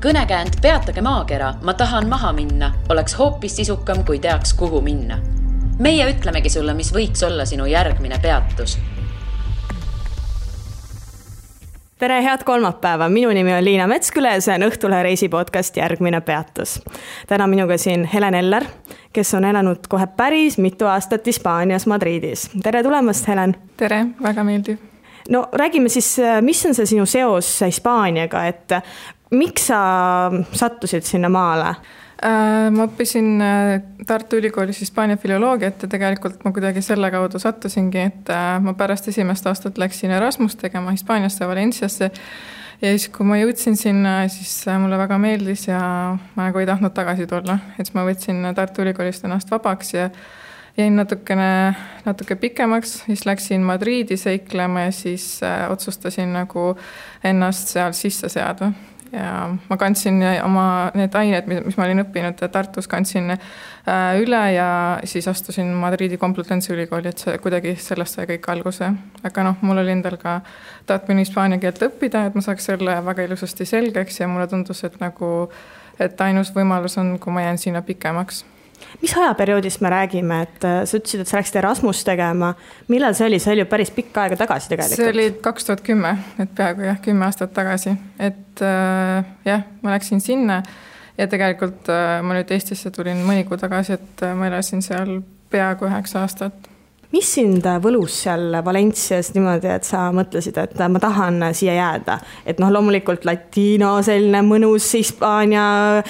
Kõnekäänd Peatage maakera, ma tahan maha minna, oleks hoopis sisukam, kui teaks, kuhu minna. Meie ütlemegi sulle, mis võiks olla sinu järgmine peatus. Tere, head kolmapäeva. Minu nimi on Liina Metsküle ja see on Õhtulehe reisipodcast Järgmine peatus. Täna minuga siin Helen Eller, kes on elanud kohe päris mitu aastat Hispaanias Madridis. Tere tulemast, Helen. Tere, väga meeldiv. No räägime siis, mis on see sinu seos Hispaaniaga, et miks sa sattusid sinna maale? Ma õppisin Tartu Ülikoolis Hispaania filoloogiat ja tegelikult ma kuidagi selle kaudu sattusingi, et ma pärast esimest aastat läksin Erasmus tegema Hispaaniasse, Valenciasse ja siis kui ma jõudsin sinna, siis mulle väga meeldis ja ma nagu ei tahtnud tagasi tulla. Et ma võtsin Tartu Ülikoolist ennast vabaks ja jäin natuke pikemaks, siis läksin Madriidi seiklema ja siis otsustasin nagu ennast seal sisse seada. Ja ma kandsin oma need ained, mis ma olin õppinud Tartus, kandsin üle ja siis astusin Madriidi Complutense ülikooli, et see kuidagi sellest sai kõik alguse. Aga mul oli endal ka tahtmine hispaania keelt õppida, et ma saaks selle väga ilusasti selgeks ja mulle tundus, et ainus võimalus on, kui ma jään sinna pikemaks. Mis ajaperioodist me räägime, et sa ütlesid, et sa läksid Erasmus tegema. Millal see oli? See oli ju päris pikka aega tagasi tegelikult. See oli 2010, et peaaegu 10 aastat tagasi. Et ma läksin sinna ja tegelikult ma nüüd Eestisse tulin mõni kuu tagasi, et ma elasin seal peaaegu 9 aastat. Mis sind võlus seal Valencias niimoodi, et sa mõtlesid, et ma tahan siia jääda? Et loomulikult latino, selline mõnus Hispaania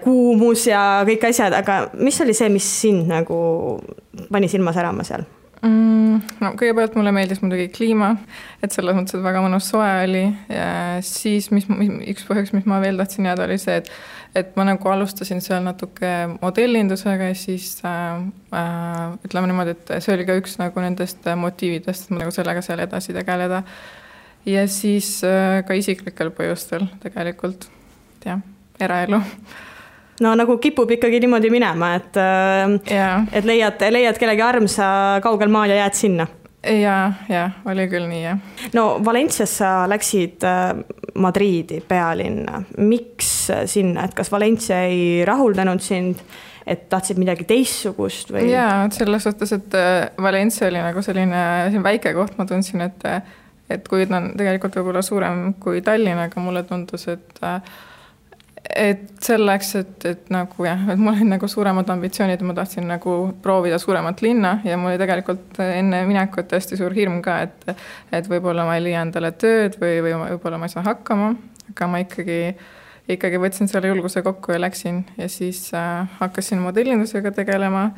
kuumus ja kõik asjad, aga mis oli see, mis sind nagu pani silma särama seal? Kõigepealt mulle meeldis muidugi kliima, et selles mõttes, et väga mõnus soe oli ja siis üks põhjus, mis ma veel tahtsin jääda, oli see, et ma nagu alustasin seal natuke modellindusega ja siis ütleme niimoodi, et see oli ka üks nagu nendest motiividest, et ma nagu sellega seal edasi tegeleda ja siis ka isiklikel põhjustel tegelikult, eraelu. No nagu kipub ikkagi niimoodi minema, et leiad kellegi armsa kaugel maal ja jääd sinna. Ja, oli küll nii, jah. No Valencias sa läksid Madriidi pealinna. Miks sinna? Et kas Valencia ei rahuldanud sind, et tahtsid midagi teissugust? Või? Jaa, selles suhtes, et Valencia oli nagu selline väike koht, ma tundsin, et kui ta on tegelikult võib-olla suurem kui Tallinn, aga mulle tundus, et selleks, et mul oli nagu suuremad ambitsioonid, ma tahtsin nagu proovida suuremat linna ja mul oli tegelikult enne minekut tõesti suur hirm ka, et võib-olla ma ei leia endale tööd või võib-olla ma ei saa hakkama, aga ma ikkagi võtsin selle julguse kokku ja läksin ja siis hakkasin modellindusega tegelema,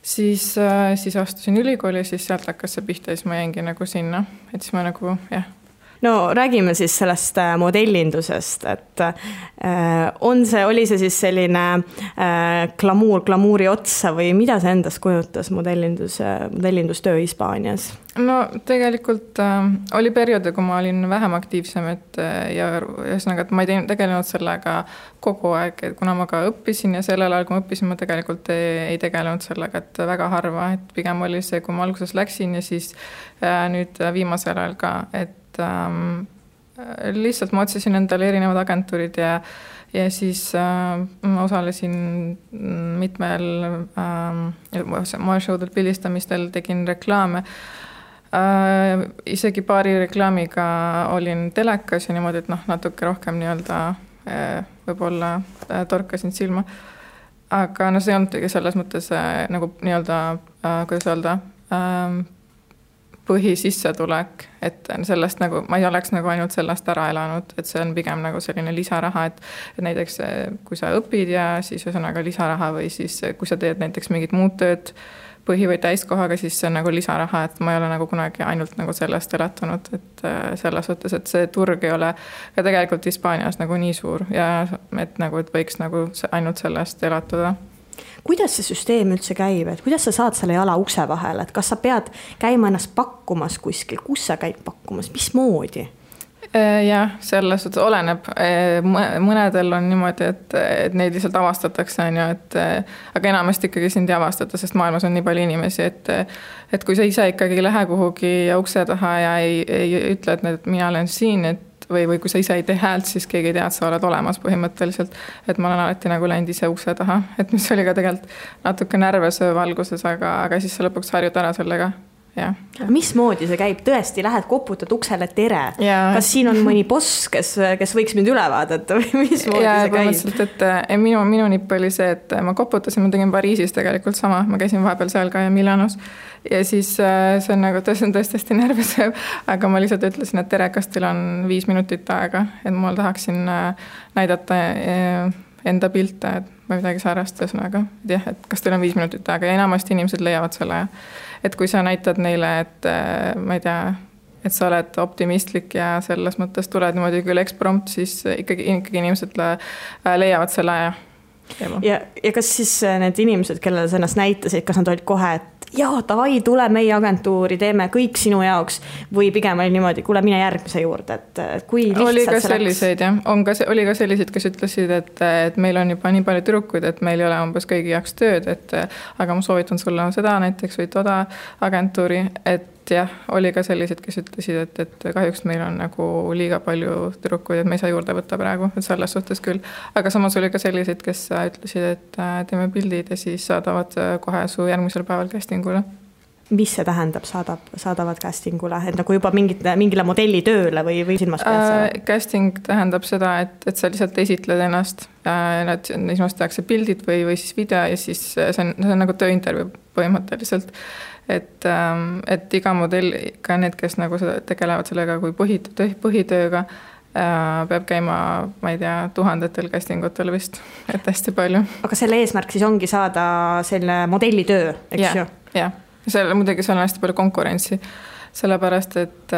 siis astusin ülikooli ja siis sealt hakkas see pihta ja siis ma jäingi nagu sinna, et siis ma nagu, No räägime siis sellest modellindusest, et oli see siis selline glamuuri otsa või mida see endast kujutas modellindustöö Hispaanias? No tegelikult oli perioode, kui ma olin vähem aktiivsem, ja ühesõnaga, et ma ei tegelenud sellega kogu aeg, et kuna ma ka õppisin ja sellel ajal, kui ma õppisin, ma tegelikult ei tegelenud sellega, et väga harva, et pigem oli see, kui ma alguses läksin ja siis nüüd viimasel ajal ka, et lihtsalt ma otsisin endale erinevad agentuurid ja siis ma osalesin mitmel moeshowdel pildistamistel, tegin reklaame. Isegi paari reklaamiga olin telekas ja niimoodi, et natuke rohkem võib-olla torkasin silma. Aga see ei olnud selles mõttes nagu kuidas öelda, põhisissetulek, et sellest nagu, ma ei oleks nagu ainult sellest ära elanud, et see on pigem nagu selline lisaraha, et näiteks kui sa õpid ja siis ühesõnaga lisaraha või siis kui sa teed näiteks mingit muud tööd põhi- või täiskohaga, siis see on nagu lisaraha, et ma ei ole nagu kunagi ainult nagu sellest elatunud, et selles suhtes, et see turg ei ole ka tegelikult Hispaanias nagu nii suur ja et võiks nagu ainult sellest elatuda. Kuidas see süsteem üldse käib, et kuidas sa saad selle jala ukse vahele, et kas sa pead käima ennast pakkumas kuskil, kus sa käid pakkumas, mis moodi? Jah, selles suhtes oleneb. Mõnedel on niimoodi, et neid lihtsalt avastatakse, aga enamasti ikkagi sind ei avastata, sest maailmas on nii palju inimesi, et kui sa ise ikkagi lähe kuhugi ukse taha ja ei ütle, et mina olen siin, et või kui sa ise ei tee häält, siis keegi ei tea, et sa oled olemas põhimõtteliselt. Et ma olen alati nagu läinud ise ukse taha, et mis oli ka tegelikult natuke närvesööv alguses, aga siis sa lõpuks harjud ära sellega. Ja. Mismoodi see käib? Tõesti, lähed koputad uksele tere. Kas siin on mõni boss, kes võiks mind üle vaadata või mismoodi see käib? Et minu nipp oli see, et ma koputasin, ma tegin Pariisis tegelikult sama, ma käisin vahepeal seal ka ja Milanos ja siis see on nagu tõesti närvesööv, aga ma lihtsalt ütlesin, et tere, kas teil on 5 minutit aega, et ma tahaksin näidata enda pilte, et ma midagi säärast ühesõnaga, et kas teil on 5 minutit aega ja enamasti inimesed leiavad selle. Et kui sa näitad neile, et ma ei tea, et sa oled optimistlik ja selles mõttes tuled niimoodi küll eksprompt, siis ikkagi inimesed leiavad selle aja. Ja kas siis need inimesed, kellele sa ennast näitasid, kas nad olid kohe, et jaa, davai, tule meie agentuuri, teeme kõik sinu jaoks või pigem oli niimoodi, kuule, mine järgmise juurde, et kui lihtsalt oli ka selliseid, jah. Oli ka selliseid, kes ütlesid, et meil on juba nii palju tüdrukuid, et meil ei ole umbes kõigi jaoks tööd, aga ma soovitan sulle seda näiteks või toda agentuuri, et jah, oli ka sellised, kes ütlesid, et kahjuks meil on nagu liiga palju tüdrukuid, et me ei saa juurde võtta praegu, et selles suhtes küll. Aga samas oli ka sellised, kes ütlesid, et teeme pildid ja siis saadavad kohe su järgmisel päeval castingule. Mis see tähendab, saadavad castingule? Et nagu juba mingile modelli tööle või silmas pead? Casting tähendab seda, et sa lihtsalt esitled ennast ja esmast tehakse pildid või siis video ja siis see on nagu tööintervjuu põhimõtteliselt. Et iga modell, ka need, kes nagu tegelevad sellega kui põhitööga, peab käima, ma ei tea, 1000 castingutel vist, et hästi palju. Aga selle eesmärk siis ongi saada selle modellitöö, eks ju? Jah. Muidugi seal on hästi palju konkurentsi, sellepärast, et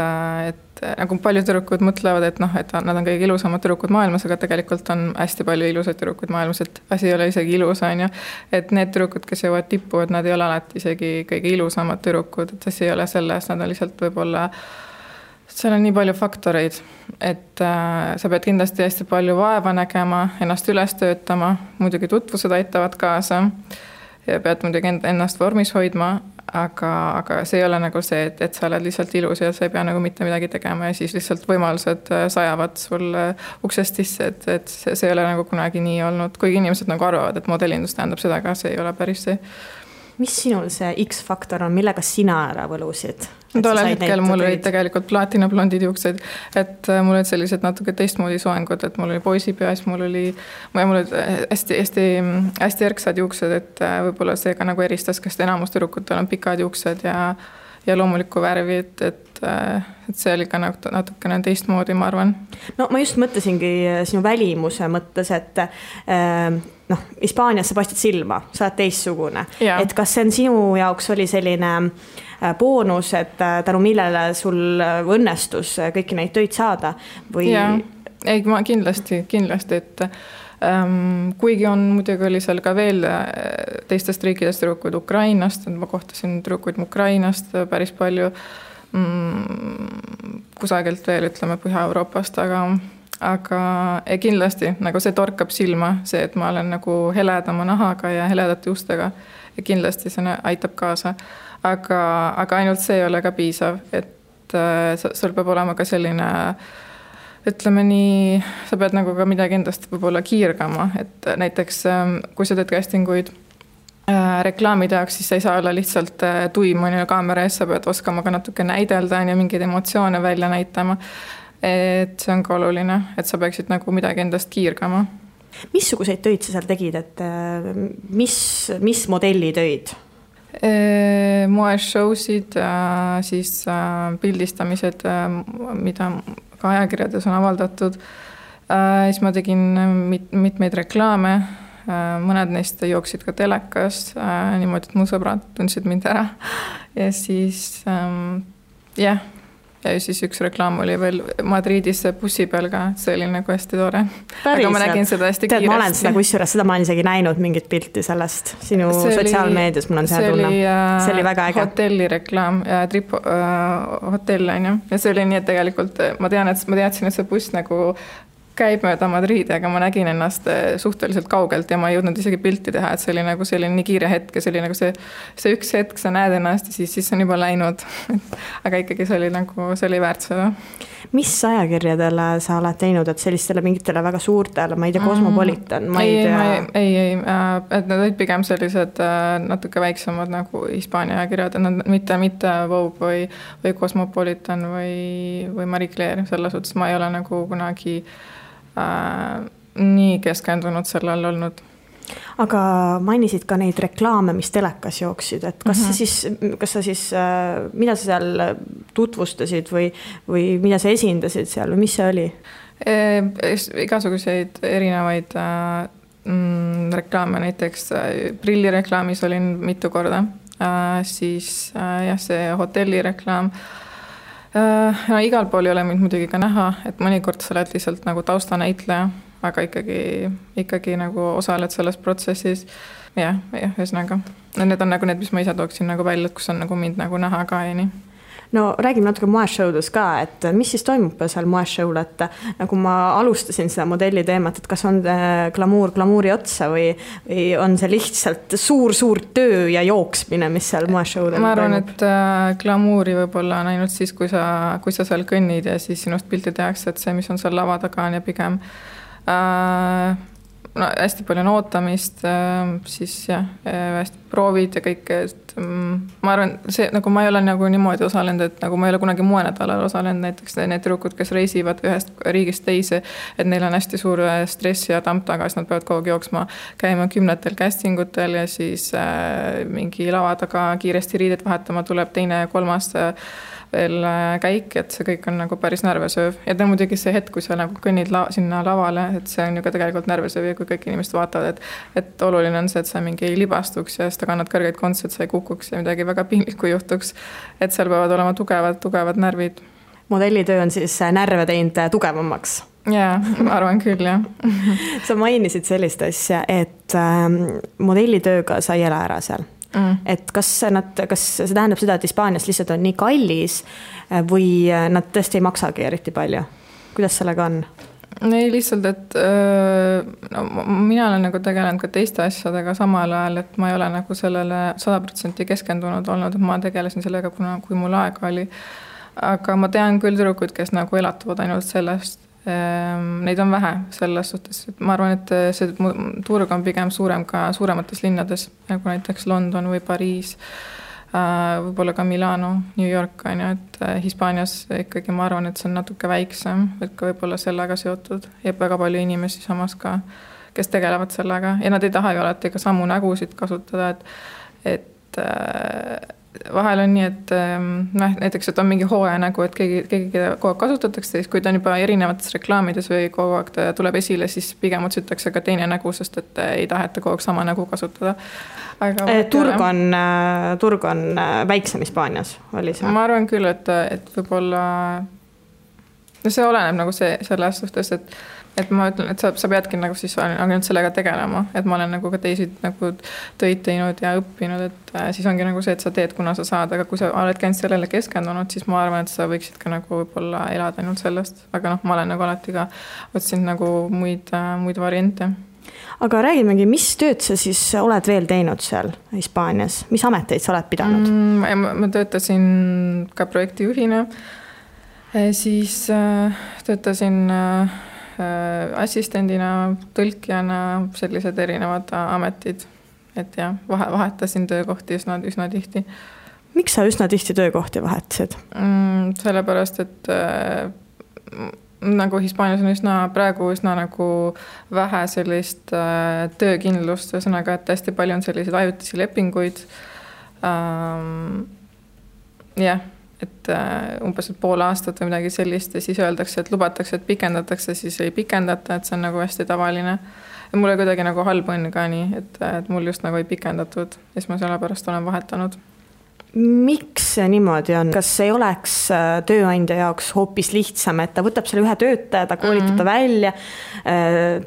nagu paljud tüdrukud mõtlevad, et nad on kõige ilusamad tüdrukud maailmas, aga tegelikult on hästi palju ilusaid tüdrukud maailmas, et asi ei ole isegi ilus, on ju. Et need tüdrukud, kes jõuavad tippu, et nad ei ole alati isegi kõige ilusamad tüdrukud, et asi ei ole selles, nad on lihtsalt võib-olla, seal on nii palju faktoreid, et sa pead kindlasti hästi palju vaeva nägema, ennast üles töötama, muidugi tutvused aitavad kaasa ja pead muidugi ennast vormis hoidma, aga see ei ole nagu see, et sa oled lihtsalt ilus ja sa ei pea nagu mitte midagi tegema ja siis lihtsalt võimalused sajavad sul uksest sisse, et see ei ole nagu kunagi nii olnud, kuigi inimesed nagu arvavad, et modellindus tähendab seda, aga see ei ole päris see. Mis sinul see X-faktor on, millega sina ära võlusid? Tolle hetkel mul olid tegelikult platinablondid juuksed, et mul olid sellised natuke teistmoodi soengud, et mul oli poisipeas, mul olid hästi erksad juuksed, et võib-olla see ka nagu eristas, kas enamus tüdrukutel on pikad juuksed ja loomulikku värvi, et see oli ka natukene teistmoodi, ma arvan. No ma just mõtlesingi sinu välimuse mõttes, et Hispaanias sa paistad silma, sa oled teistsugune. Et kas see on sinu jaoks oli selline boonus, et tänu millele sul õnnestus kõiki neid töid saada? Või... Ei, ma kindlasti, et kuigi on muidugi oli seal ka veel teistest riikidest tüdrukuid Ukrainast, ma kohtasin tüdrukuid Ukrainast päris palju kusagilt veel, ütleme Põhja-Euroopast, aga kindlasti nagu see torkab silma, see, et ma olen nagu heledama nahaga ja heledate ustega ja kindlasti see aitab kaasa. Aga ainult see ei ole ka piisav, et sul peab olema ka selline, ütleme nii, sa pead nagu ka midagi endast võib-olla kiirgama, et näiteks kui sa teed castinguid reklaamide jaoks, siis sa ei saa olla lihtsalt tuim kaamera ees, sa pead oskama ka natuke näidelda ja mingeid emotsioone välja näitama. Et see on ka oluline, et sa peaksid nagu midagi endast kiirgama. Missuguseid töid sa seal tegid, et mis modelli töid? Moeshowsid, siis pildistamised, mida ka ajakirjades on avaldatud. Siis ma tegin mitmeid reklaame, mõned neist jooksid ka telekas, niimoodi, et mu sõbrad tundsid mind ära. Ja siis, jah. Ja siis üks reklaam oli veel Madridis bussi peal ka, see oli nagu hästi tore. Aga ma nägin seda hästi kiiresti. Ma olen seda kusjuures, seda ma olen isegi näinud mingit pilti sellest sinu sotsiaalmeedias, mul on see tunne. See oli väga äge. Hotelli reklaam, Trip hotell on ju. Ja see oli nii, et tegelikult ma teadsin, et see buss nagu käib mööda Madridi, aga ma nägin ennast suhteliselt kaugelt ja ma ei jõudnud isegi pilti teha, et see oli nagu selline nii kiire hetk ja see oli nagu see üks hetk, sa näed ennast ja siis on juba läinud. Aga ikkagi see oli väärt seda. Mis ajakirjadele sa oled teinud, et sellistele mingitele väga suurtele, ma ei tea, Cosmopolitan, ma ei tea. Ei, et nad olid pigem sellised natuke väiksemad nagu Hispaania ajakirjad, et nad mitte Vogue või Cosmopolitan või Marie Claire, selles suhtes ma ei ole nagu kunagi nii keskendunud sellel olnud. Aga mainisid ka neid reklaame, mis telekas jooksid, et kas sa siis, mida sa seal tutvustasid või mida sa esindasid seal või mis see oli? Igasuguseid erinevaid reklaame, näiteks prillireklaamis olin mitu korda, siis see hotellireklaam. Igal pool ei ole mind muidugi ka näha, et mõnikord sa oled lihtsalt nagu taustanäitleja, aga ikkagi nagu osaled selles protsessis. Ja, ühesõnaga. Need on nagu need, mis ma ise tooksin nagu välja, et kus on nagu mind nagu näha ka ja nii. No räägime natuke moeshowdes ka, et mis siis toimub seal moeshow'l, et nagu ma alustasin seda modelli teemat, et kas on glamuuri otsa või on see lihtsalt suur töö ja jooksmine, mis seal moeshow'l toimub? Ma arvan, et glamuuri võib-olla on ainult siis, kui sa seal kõnnid ja siis sinust pilti tehakse, et see, mis on seal lava taga on ja pigem hästi palju on ootamist, siis hästi proovid ja kõik, et ma arvan, see nagu ma ei ole nagu niimoodi osalenud, et nagu ma ei ole kunagi moenädalal osalenud, näiteks need tüdrukud, kes reisivad ühest riigist teise, et neil on hästi suur stress ja tamp taga, siis nad peavad kogu aeg jooksma, käima 10 castingutel ja siis mingi lava taga kiiresti riidet vahetama, tuleb teine ja kolmas veel käik, et see kõik on nagu päris närvesööv. Ja muidugi see hetk, kui sa nagu kõnnid sinna lavale, et see on ju ka tegelikult närvesööv ja kui kõik inimesed vaatavad, et oluline on see, et sa mingi ei libastuks ja seda kannad kõrgeid kontse, et sa ei kukuks ja midagi väga piinlikku juhtuks. Et seal peavad olema tugevad närvid. Modellitöö on siis närve teinud tugevamaks? Jaa, ma arvan küll, jah. Sa mainisid sellist asja, et modellitööga sa ei ela ära seal. Et kas see tähendab seda, et Hispaanias lihtsalt on nii kallis või nad tõesti ei maksagi eriti palju? Kuidas sellega on? Ei, lihtsalt, et mina olen nagu tegelenud ka teiste asjadega samal ajal, et ma ei ole nagu sellele 100% keskendunud olnud, et ma tegelesin sellega, kui mul aega oli. Aga ma tean küll tüdrukud, kes nagu elatuvad ainult sellest. Neid on vähe selles suhtes, et ma arvan, et see turg on pigem suurem ka suuremates linnades, nagu näiteks London või Pariis, võib-olla ka Milano, New York, et Hispaanias ikkagi ma arvan, et see on natuke väiksem, et ka võib-olla sellega seotud ja väga palju inimesi samas ka, kes tegelevad sellega ja nad ei taha ju alati ka samu nägusid kasutada, et vahel on nii, et näiteks, et on mingi hooaja nägu, et keegi kogu aeg kasutatakse, siis kui ta on juba erinevates reklaamides või kogu aeg ta tuleb esile, siis pigem otsitakse ka teine nägu, sest et ei taheta kogu aeg sama nägu kasutada. Aga turg on väiksem Hispaanias, oli see? Ma arvan küll, et võib-olla see oleneb nagu selles suhtes, et ma ütlen, et sa peadki nagu siis ainult sellega tegelema, et ma olen nagu ka teisi nagu töid teinud ja õppinud, et siis ongi nagu see, et sa teed, kuna sa saad, aga kui sa oled käinud sellele keskendunud, siis ma arvan, et sa võiksid ka nagu võib-olla elada ainult sellest, aga ma olen nagu alati ka otsinud nagu muid variante. Aga räägimegi, mis tööd sa siis oled veel teinud seal Hispaanias? Mis ameteid sa oled pidanud? Ma töötasin ka projektijuhina, siis töötasin assistendina, tõlkijana, sellised erinevad ametid, et vahetasin töökohti üsna tihti. Miks sa üsna tihti töökohti vahetasid? Sellepärast, et nagu Hispaanias on praegu nagu vähe sellist töökindlust, ühesõnaga, et hästi palju on selliseid ajutisi lepinguid. Et umbes pool aastat või midagi sellist ja siis öeldakse, et lubatakse, et pikendatakse, siis ei pikendata, et see on nagu hästi tavaline. Ja mul oli kuidagi nagu halb õnn ka nii, et mul just nagu ei pikendatud ja siis ma selle pärast olen vahetanud. Miks see niimoodi on? Kas ei oleks tööandja jaoks hoopis lihtsam, et ta võtab selle ühe töötaja, ta koolitab ta välja,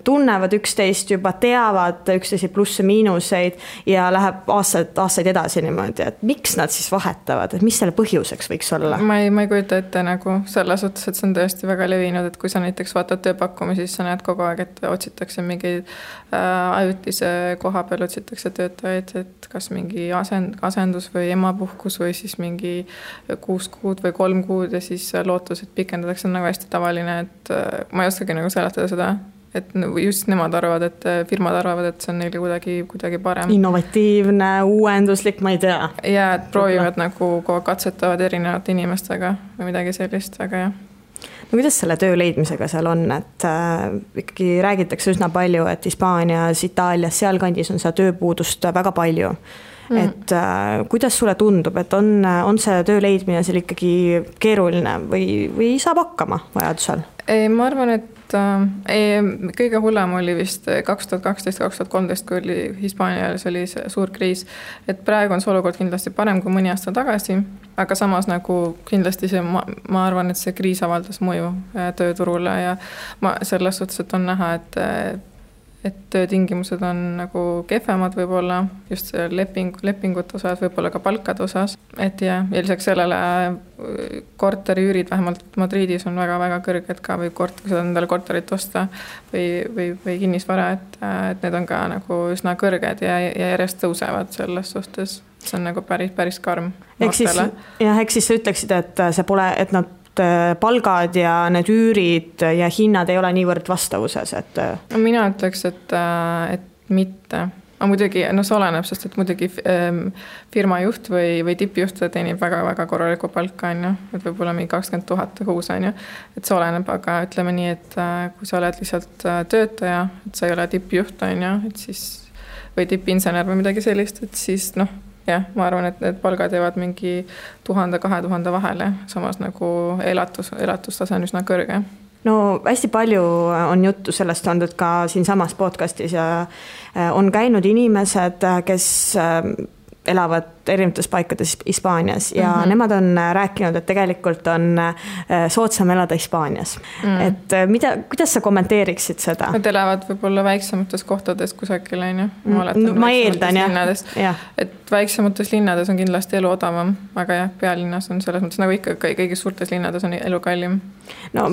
tunnevad üksteist juba, teavad üksteisi plusse miinuseid ja läheb aastaid edasi niimoodi, et miks nad siis vahetavad, et mis selle põhjuseks võiks olla? Ma ei kujuta ette nagu selles suhtes, et see on tõesti väga levinud, et kui sa näiteks vaatad tööpakkumi, siis sa näed kogu aeg, et otsitakse mingi ajutise koha peal otsitakse töötajaid, et kas mingi asendus või emapuhkus või siis mingi 6 kuud või 3 kuud ja siis lootus, et pikendatakse, on nagu hästi tavaline, et ma ei oskagi nagu seletada seda, et just nemad arvavad, et firmad arvavad, et see on neile kuidagi parem. Innovatiivne, uuenduslik, ma ei tea. Ja et proovivad nagu katsetavad erinevate inimestega või midagi sellist, aga jah. No kuidas selle töö leidmisega seal on, et ikkagi räägitakse üsna palju, et Hispaanias, Itaalias, sealkandis on seda tööpuudust väga palju. Et kuidas sulle tundub, et on see töö leidmine seal ikkagi keeruline või saab hakkama vajadusel? Ma arvan, et kõige hullem oli vist 2012-2013, kui oli Hispaanias oli see suur kriis, et praegu on see olukord kindlasti parem kui mõni aasta tagasi, aga samas nagu kindlasti ma arvan, et see kriis avaldas mõju tööturule ja selles suhtes, et on näha, et töötingimused on nagu kehvemad võib-olla just lepingute osas, võib-olla ka palkade osas. Et ja lisaks sellele korteriüürid vähemalt Madridis on väga-väga kõrged ka või kui sa endale korterit osta või kinnisvara, et need on ka nagu üsna kõrged ja järjest tõusevad selles suhtes. See on nagu päris karm. Ehk siis sa ütleksid, et see pole, et nad palgad ja need üürid ja hinnad ei ole niivõrd vastavuses, et... Mina ütleks, et mitte. Aga muidugi, see oleneb, sest et muidugi firma juht või tippjuht teenib väga-väga korralikku palka, et võib-olla mingi 20 000 kuus, et see oleneb, aga ütleme nii, et kui sa oled lihtsalt töötaja, et sa ei ole tippjuht, et siis, või tippinsener või midagi sellist, et siis jah, ma arvan, et need palgad jäävad mingi 1000-2000 vahele, samas nagu elatustase on üsna kõrge. No hästi palju on juttu sellest olnud ka siin samas podcastis ja on käinud inimesed, kes elavad erinevates paikades Hispaanias ja nemad on rääkinud, et tegelikult on soodsam elada Hispaanias. Et kuidas sa kommenteeriksid seda? Nad elavad võib-olla väiksemates kohtades kusagil, ma eeldan, jah. Et väiksemates linnades on kindlasti elu odavam, aga jah, pealinnas on selles mõttes nagu ikka kõigis suurtes linnades on elu kallim. No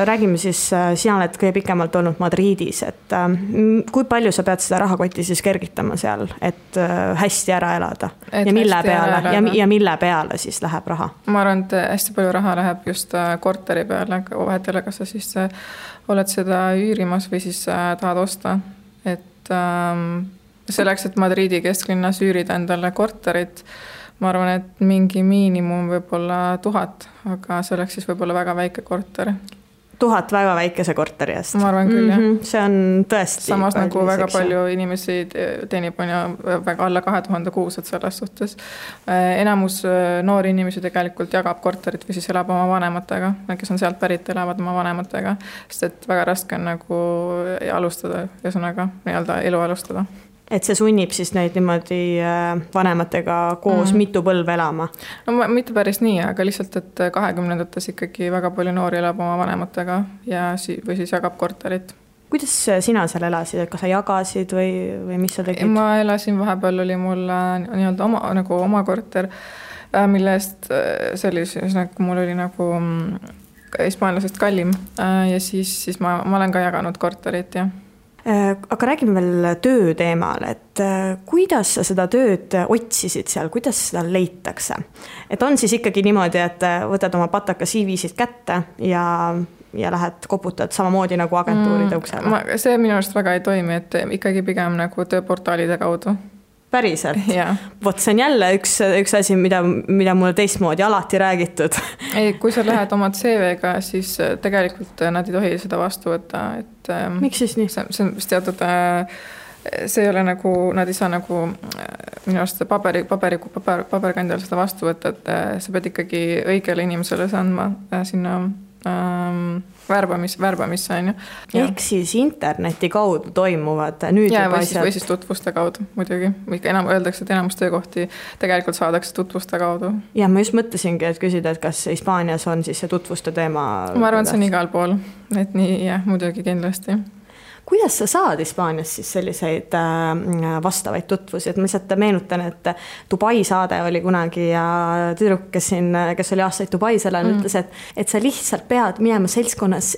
räägime siis, sina oled kõige pikemalt olnud Madridis, et kui palju sa pead seda rahakotti siis kergitama seal, et hästi ära elada? Ja mille peale siis läheb raha? Ma arvan, et hästi palju raha läheb just korteri peale, vahetele, kas sa siis oled seda üürimas või siis tahad osta. Et selleks, et Madridi kesklinnas üürida endale korterit, ma arvan, et mingi miinimum võib-olla 1000, aga selleks siis võib-olla väga väike korter. 1000 väga väikese korteri eest. Ma arvan küll, jah. See on tõesti... Samas nagu väga palju inimesi teenib väga alla 2000 kuus, et selles suhtes. Enamus noori inimesi tegelikult jagab korterit või siis elab oma vanematega, kes on sealt pärit, elavad oma vanematega, sest et väga raske on nagu alustada, ühesõnaga elu alustada. Et see sunnib siis neid niimoodi vanematega koos mitu põlve elama? No mitte päris nii, aga lihtsalt, et 20-ndates ikkagi väga palju noori elab oma vanematega või siis jagab korterit. Kuidas sina seal elasid? Kas sa jagasid või mis sa tegid? Ma elasin, vahepeal oli mul oma korter, mille eest see oli nagu mul oli nagu hispaanlasest kallim ja siis ma olen ka jaganud korterit, jah. Aga räägime veel töö teemal, et kuidas sa seda tööd otsisid seal, kuidas seda leitakse? Et on siis ikkagi niimoodi, et võtad oma pataka CV-sid kätte ja lähed koputad samamoodi nagu agentuuride uksele? See minu arust väga ei toimi, et ikkagi pigem nagu tööportaalide kaudu. Päriselt? Ja. Vot see on jälle üks asi, mida mulle teistmoodi alati räägitud. Ei, kui sa lähed oma CV-ga, siis tegelikult nad ei tohi seda vastu võtta. Et, miks siis nii? See on teatud, see ei ole nagu, nad ei saa nagu minu arust paberkandjal seda vastu võtta, et sa pead ikkagi õigele inimesele andma sinna värbamisse on ju. Ehk siis interneti kaudu toimuvad nüüd ja, juba asjad. Või siis tutvuste kaudu muidugi. Öeldakse, et enamus töökohti tegelikult saadakse tutvuste kaudu. Ja ma just mõtlesingi, et küsida, et kas Hispaanias on siis see tutvuste teema. Ma arvan, see on igal pool. Et nii, jah, muidugi kindlasti. Kuidas sa saad Hispaanias siis selliseid vastavaid tutvusi, et ma lihtsalt meenutan, et Dubai saade oli kunagi ja tüdruk, kes oli aastaid Dubais elanud, ütles, et sa lihtsalt pead minema seltskonnas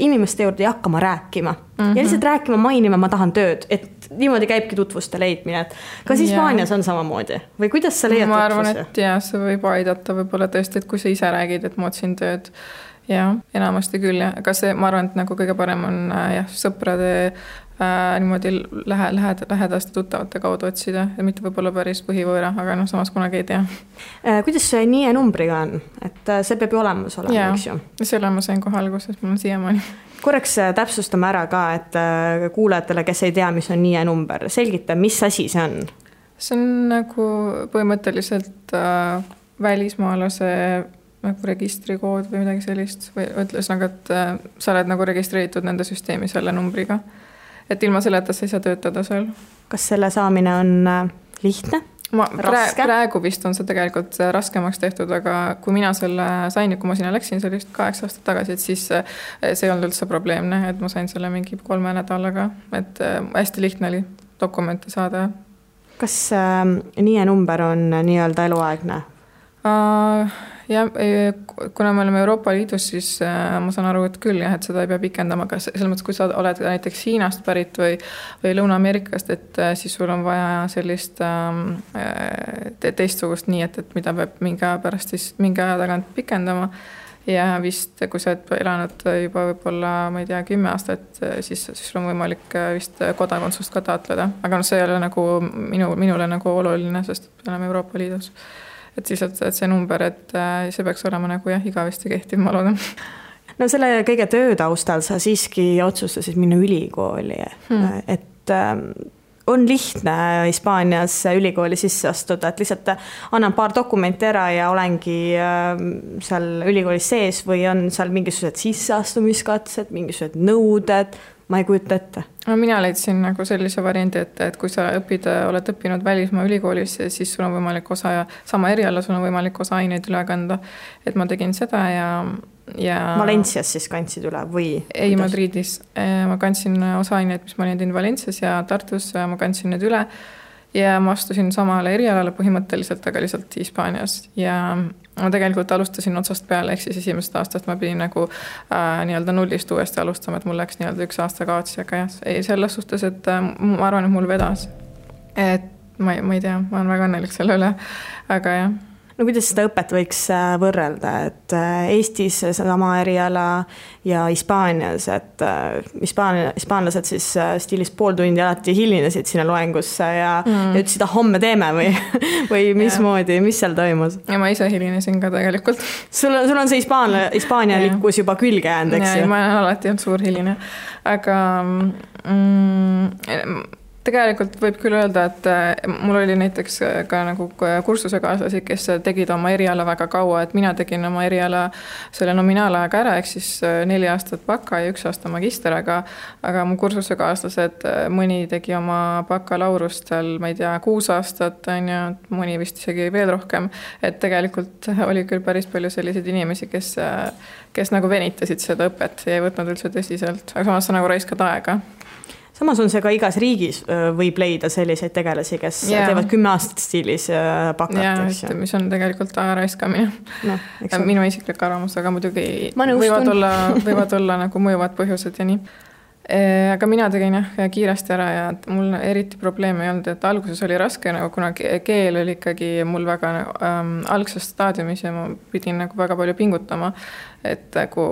inimeste juurde ja hakkama rääkima. Ja lihtsalt rääkima, mainima, ma tahan tööd, et niimoodi käibki tutvuste leidmine, et kas Hispaanias on samamoodi või kuidas sa leiad tutvusi? Ma arvan, et jah, see võib aidata võib-olla tõesti, et kui sa ise räägid, et ma otsin tööd. Ja enamasti küll, aga see, ma arvan, et nagu kõige parem on sõprade niimoodi lähedaste tuttavate kaudu otsida ja mitte võib-olla päris põhivõõra, aga samas kunagi ei tea. Kuidas see NIE numbriga on? Et see peab ju olemas olema, eks ju? Selle ma sain kohe alguses, mul on siiamaani. Korraks täpsustame ära ka, et kuulajatele, kes ei tea, mis on NIE number, selgita, mis asi see on? See on nagu põhimõtteliselt välismaalase nagu registrikood või midagi sellist või ütles nagu, et sa oled nagu registreeritud nende süsteemi selle numbriga. Et ilma selleta sa ei saa töötada seal. Kas selle saamine on lihtne? Praegu vist on see tegelikult raskemaks tehtud, aga kui mina selle sain, kui ma sinna läksin, see oli just 8 aastat tagasi, et siis see ei olnud üldse probleemne, et ma sain selle mingi 3 nädalaga, et hästi lihtne oli dokumente saada. Kas NIE number on nii-öelda eluaegne? Ja kuna me oleme Euroopa Liidus, siis ma saan aru, et küll jah, et seda ei pea pikendama, aga selles mõttes, kui sa oled näiteks Hiinast pärit või Lõuna-Ameerikast, et siis sul on vaja sellist teistsugust nii, et mida peab mingi aja tagant pikendama ja vist, kui sa oled elanud juba võib-olla, ma ei tea, 10 aastat, siis sul on võimalik vist kodakondsust ka taotleda, aga see ei ole nagu minule nagu oluline, sest me oleme Euroopa Liidus. Et siis, et see number, et see peaks olema nagu igavesti kehtiv, ma loodan. No selle kõige töötaustal sa siiski otsustasid minna ülikooli, et on lihtne Hispaanias ülikooli sisse astuda, et lihtsalt annan paar dokumenti ära ja olengi seal ülikoolis sees või on seal mingisugused sisseastumiskatsed, mingisugused nõuded, ma ei kujuta ette. No, mina leidsin nagu sellise variandi, et kui sa oled õppinud välismaa ülikoolis, siis sul on võimalik sama eriala, sul on võimalik osa aineid üle kanda. Et ma tegin seda ja Valencias siis kandsid üle või? Ei, Madridis. Ma kandsin osa aineid, mis ma olin teinud Valencias ja Tartus, ma kandsin need üle ja ma astusin samale erialale põhimõtteliselt, aga lihtsalt Hispaanias ja ma tegelikult alustasin otsast peale, ehk siis esimesest aastast ma pidin nagu nii-öelda nullist uuesti alustama, et mul läks nii-öelda 1 aasta kaotsi, aga jah, selles suhtes, et ma arvan, et mul vedas. Et ma ei tea, ma olen väga õnnelik selle üle, aga jah. No kuidas seda õpet võiks võrrelda, et Eestis sama eriala ja Hispaanias, et hispaanlased siis stiilis pool tundi alati hilinesid sinna loengusse ja ütlesid, homme teeme või mismoodi, mis seal toimus? Ja ma ise hilinesin ka tegelikult. Sul on see hispaanialikkus juba külge jäänud, eks ju? Ma olen alati olnud suur hiline, aga tegelikult võib küll öelda, et mul oli näiteks ka nagu kursusekaaslasi, kes tegid oma eriala väga kaua, et mina tegin oma eriala selle nominaalajaga ära, ehk siis 4 aastat baka ja 1 aasta magister, aga mu kursusekaaslased, mõni tegi oma bakalaurust seal, ma ei tea, 6 aastat, ja mõni vist isegi veel rohkem, et tegelikult oli küll päris palju selliseid inimesi, kes nagu venitasid seda õpet ja ei võtnud üldse tõsiselt, aga samas sa nagu raiskad aega. Samas on see ka igas riigis võib leida selliseid tegelasi, kes teevad 10 aastat stiilis bakat. Ja, mis on tegelikult aja raiskamine. No, minu isiklik arvamus, aga muidugi võivad olla nagu mõjuvad põhjused ja nii. Aga mina tegin kiiresti ära ja mul eriti probleeme ei olnud, et alguses oli raske, nagu kuna keel oli ikkagi mul väga algses staadiumis ja ma pidin nagu väga palju pingutama, et nagu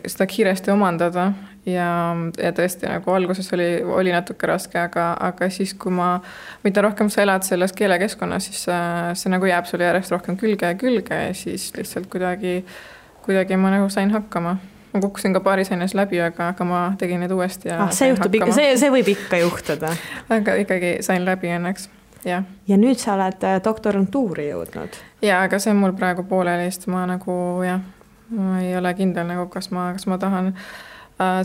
seda kiiresti omandada ja tõesti nagu alguses oli natuke raske, aga siis kui mida rohkem sa elad selles keelekeskkonnas, siis see nagu jääb sulle järjest rohkem külge ja siis lihtsalt kuidagi ma nagu sain hakkama. Ma kukkusin ka paaris aines läbi, aga ma tegin need uuesti ja see võib ikka juhtuda. Aga ikkagi sain läbi õnneks, jah. Ja nüüd sa oled doktorantuuri jõudnud? Ja, aga see on mul praegu poolelist, ma nagu ma ei ole kindel nagu, kas ma tahan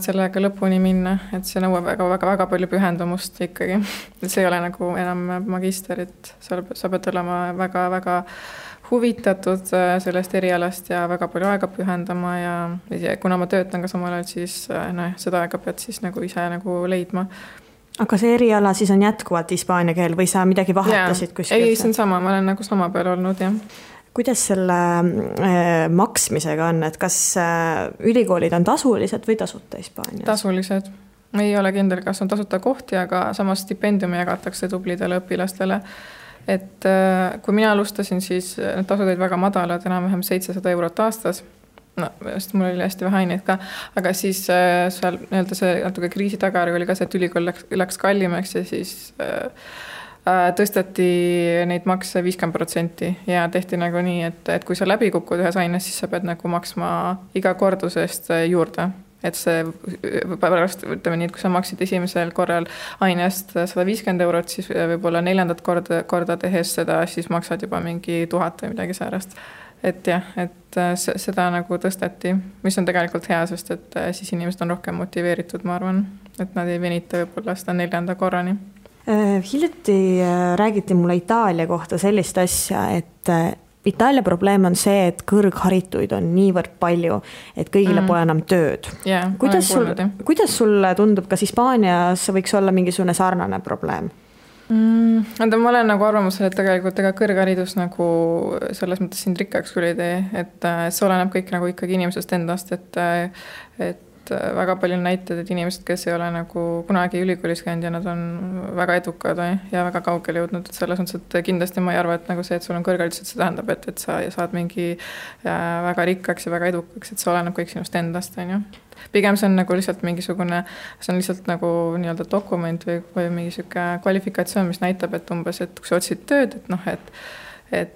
sellega lõpuni minna, et see nõuab väga palju pühendumust ikkagi. See ei ole nagu enam magister, et sa pead olema väga huvitatud sellest erialast ja väga palju aega pühendama ja kuna ma töötan ka samal ajal, siis seda aega pead siis nagu ise nagu leidma. Aga see eriala siis on jätkuvalt hispaania keel või sa midagi vahetasid kuskil? Ei, see on sama, ma olen nagu sama peal olnud, jah. Kuidas selle maksmisega on, et kas ülikoolid on tasulised või tasuta Hispaanias? Tasulised. Ei ole kindel, kas on tasuta kohti, aga samas stipendiumi jagatakse tublidele õpilastele. Et kui mina alustasin, siis need tasud olid väga madalad, enam-vähem 700 eurot aastas. No, sest mul oli hästi vähe aineid ka, aga siis seal see natuke kriisi tagari oli ka see, et ülikool läks kallimaks ja siis tõsteti neid makse 50% ja tehti nagu nii, et kui sa läbi kukud ühes aines, siis sa pead nagu maksma iga kordusest juurde. Et see pärast, ütleme nii, et kui sa maksid esimesel korral ainest 150 eurot, siis võib-olla 4. korda tehes seda, siis maksad juba mingi 1000 või midagi säärast. Et jah, et seda nagu tõsteti, mis on tegelikult hea, sest et siis inimesed on rohkem motiveeritud, ma arvan, et nad ei venita võib-olla seda 4. korrani. Hiljuti räägiti mulle Itaalia kohta sellist asja, et Itaalia probleem on see, et kõrgharituid on niivõrd palju, et kõigile pole enam tööd. Yeah, kuidas sulle tundub, kas Hispaanias võiks olla mingisugune sarnane probleem? Ma olen nagu arvamusel, et tegelikult kõrgharidus nagu selles mõttes sind rikkaks küll ei tee, et see oleneb kõik nagu ikkagi inimesest endast, et väga palju näited, et inimesed, kes ei ole nagu kunagi ülikoolis käinud ja nad on väga edukad ja väga kaugele jõudnud, et selles mõttes, et kindlasti ma ei arva, et nagu see, et sul on kõrgharidus, et see tähendab, et sa saad mingi väga rikkaks ja väga edukaks, et see oleneb kõik sinust endast, on ju. Pigem see on nagu lihtsalt mingisugune, see on lihtsalt nagu nii-öelda dokument või mingi siuke kvalifikatsioon, mis näitab, et umbes, et kui sa otsid tööd, et ma ei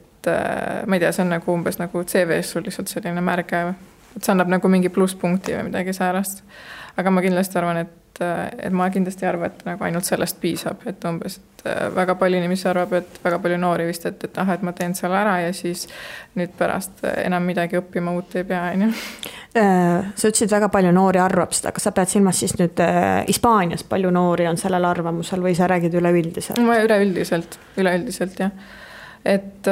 tea, see on nagu umbes nagu CV-s sul lihtsalt selline märge, et see annab nagu mingi plusspunkti või midagi säärast. Aga ma kindlasti arvan, et ma kindlasti arvan, et nagu ainult sellest piisab, et umbes, et väga palju inimesi arvab, et väga palju noori vist, et ma teen seal ära ja siis nüüd pärast enam midagi õppima uut ei pea, on ju. Sa ütlesid, väga palju noori arvab seda, kas sa pead silmas siis nüüd Hispaanias palju noori on sellel arvamusel või sa räägid üleüldiselt? Ma üleüldiselt, jah. Et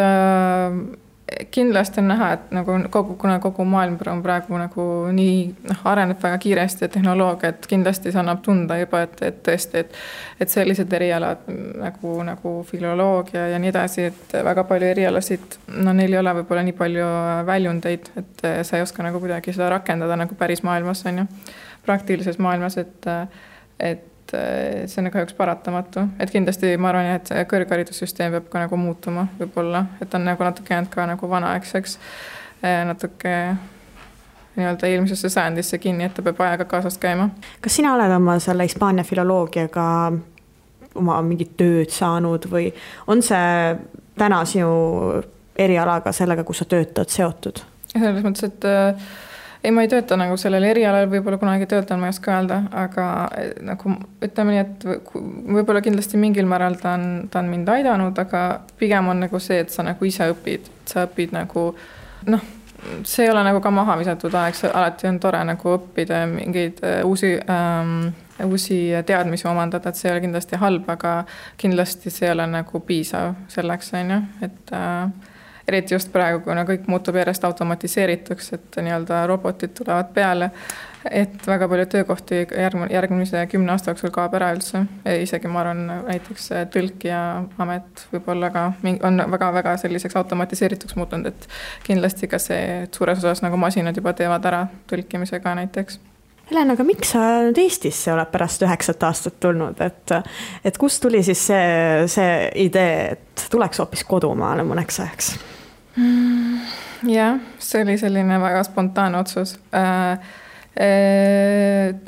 kindlasti on näha, et nagu kogu maailm on praegu nagu nii areneb väga kiiresti ja tehnoloogia, et kindlasti see annab tunda juba, et tõesti, et sellised erialad nagu filoloogia ja nii edasi, et väga palju erialasid, neil ei ole võib-olla nii palju väljundeid, et sa ei oska nagu kuidagi seda rakendada nagu päris maailmas, on ju, praktilises maailmas, et see on kahjuks paratamatu, et kindlasti ma arvan, et kõrgharidussüsteem peab ka nagu muutuma võib-olla, et on nagu natuke jäänud ka nagu vanaaegseks, natuke nii-öelda eelmisesse sajandisse kinni, et ta peab ajaga kaasast käima. Kas sina oled oma selle Hispaania filoloogiaga oma mingit tööd saanud või on see täna sinu erialaga sellega, kus sa töötad, seotud? Selles mõttes, et ei, ma ei tööta nagu sellel erialal, võib-olla kunagi töötan, ma ei oska öelda, aga nagu ütleme nii, et võib-olla kindlasti mingil määral ta on mind aidanud, aga pigem on nagu see, et sa nagu ise õpid, sa õpid nagu, see ei ole nagu ka maha visatud aeg, alati on tore nagu õppida mingeid uusi teadmisi omandada, et see ei ole kindlasti halb, aga kindlasti see ei ole nagu piisav selleks, on ju, et eriti just praegu, kuna kõik muutub järjest automatiseerituks, et nii-öelda robotid tulevad peale, et väga palju töökohti järgmise 10 aasta jooksul kaob ära üldse. Isegi ma arvan, näiteks tõlkija amet võib-olla ka on väga-väga selliseks automatiseerituks muutunud, et kindlasti ka see suures osas nagu masinad juba teevad ära tõlkimisega näiteks. Helen, aga miks sa nüüd Eestisse oled pärast 9 aastat tulnud, et kust tuli siis see idee, et tuleks hoopis kodumaale mõneks ajaks? Jah, see oli selline väga spontaanne otsus.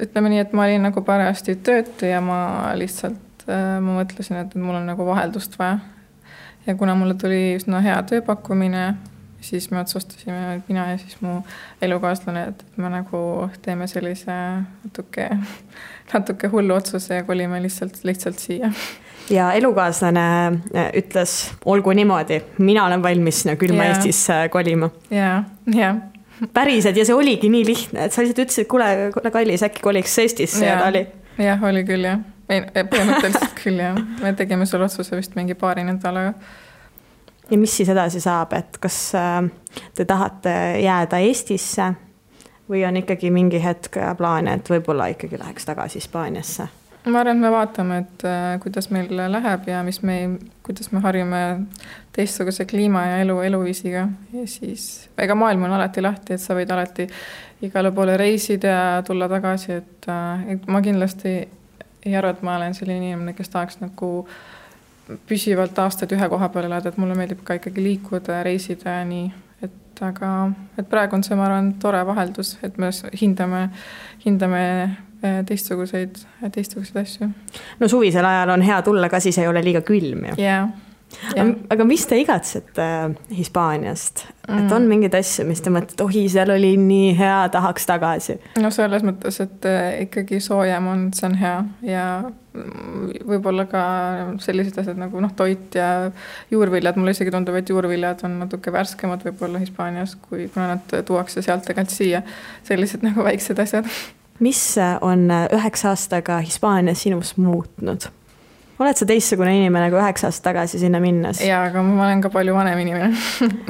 Ütleme nii, et ma olin nagu parajasti töötu ja ma mõtlesin, et mul on nagu vaheldust vaja. Ja kuna mulle tuli üsna hea tööpakkumine, siis me otsustasime, et mina ja siis mu elukaaslane, et me nagu teeme sellise natuke hullu otsuse ja kolime lihtsalt siia. Ja elukaaslane ütles, olgu niimoodi, mina olen valmis külma Eestisse kolima. Ja. päriselt ja see oligi nii lihtne, et sa lihtsalt ütlesid, kuule Kallis, äkki koliks Eestisse ja ta oli. Jah, oli küll jah. Põhimõtteliselt küll jah. Me tegime selle otsuse vist mingi paari nädalaga. Ja mis siis edasi saab, et kas te tahate jääda Eestisse või on ikkagi mingi hetk plaan, et võib-olla ikkagi läheks tagasi Hispaaniasse? Ma arvan, et me vaatame, et kuidas meil läheb ja kuidas me harjume teistsuguse kliima ja eluviisiga. Ja siis, ega maailm on alati lahti, et sa võid alati igale poole reisida ja tulla tagasi. Et ma kindlasti ei arva, et ma olen selline inimene, kes tahaks nagu püsivalt aastaid ühe koha peale elada, et mulle meeldib ka ikkagi liikuda ja reisida ja nii. Et praegu on see, ma arvan, tore vaheldus, et me hindame teistsuguseid asju. No suvisel ajal on hea tulla, ka siis ei ole liiga külm ju. Yeah. Aga mis te igatsete Hispaaniast? Et on mingid asju, mis te mõtlete, seal oli nii hea, tahaks tagasi? No selles mõttes, et ikkagi soojem on, see on hea ja võib-olla ka sellised asjad nagu toit ja juurviljad. Mulle isegi tundub, et juurviljad on natuke värskemad võib-olla Hispaanias, kuna nad tuuakse sealt tegelikult siia. Sellised nagu väiksed asjad. Mis on 9 aastaga Hispaanias sinust muutnud? Oled sa teistsugune inimene kui 9 aastat tagasi sinna minnes? Jaa, aga ma olen ka palju vanem inimene.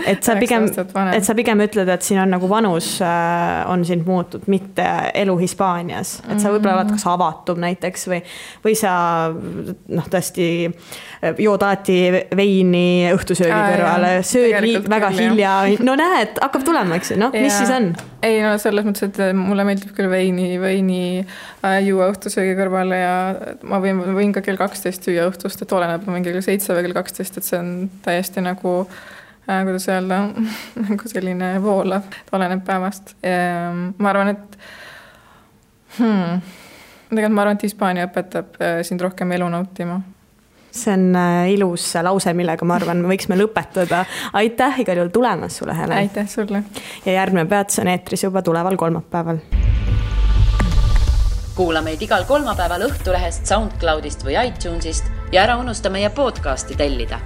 et sa pigem ütled, et siin on nagu vanus on sind muutud, mitte elu Hispaanias. Et sa võib-olla oled kas avatum näiteks või sa tõesti jood alati veini õhtusöögi kõrvale, sööd väga hilja. No näed, hakkab tulema, eks? Mis siis on? Ei, selles mõttes, et mulle meeldib küll veini juua õhtusöögi kõrvale ja ma võin ka kell 12 süüa õhtust, et oleneb mingi kell 7 või kell 12, et see on täiesti nagu, kuidas öelda, nagu selline voolav, et oleneb päevast. Ma arvan, et Hispaania õpetab sind rohkem elu nautima. See on ilus lause, millega ma arvan, me võiksime lõpetada. Aitäh igal juhul tulemas sulle, Helen. Aitäh sulle. Ja järgmine peatus on eetris juba tuleval kolmapäeval. Kuula meid igal kolmapäeval Õhtulehest, SoundCloudist või iTunesist ja ära unusta meie podcasti tellida.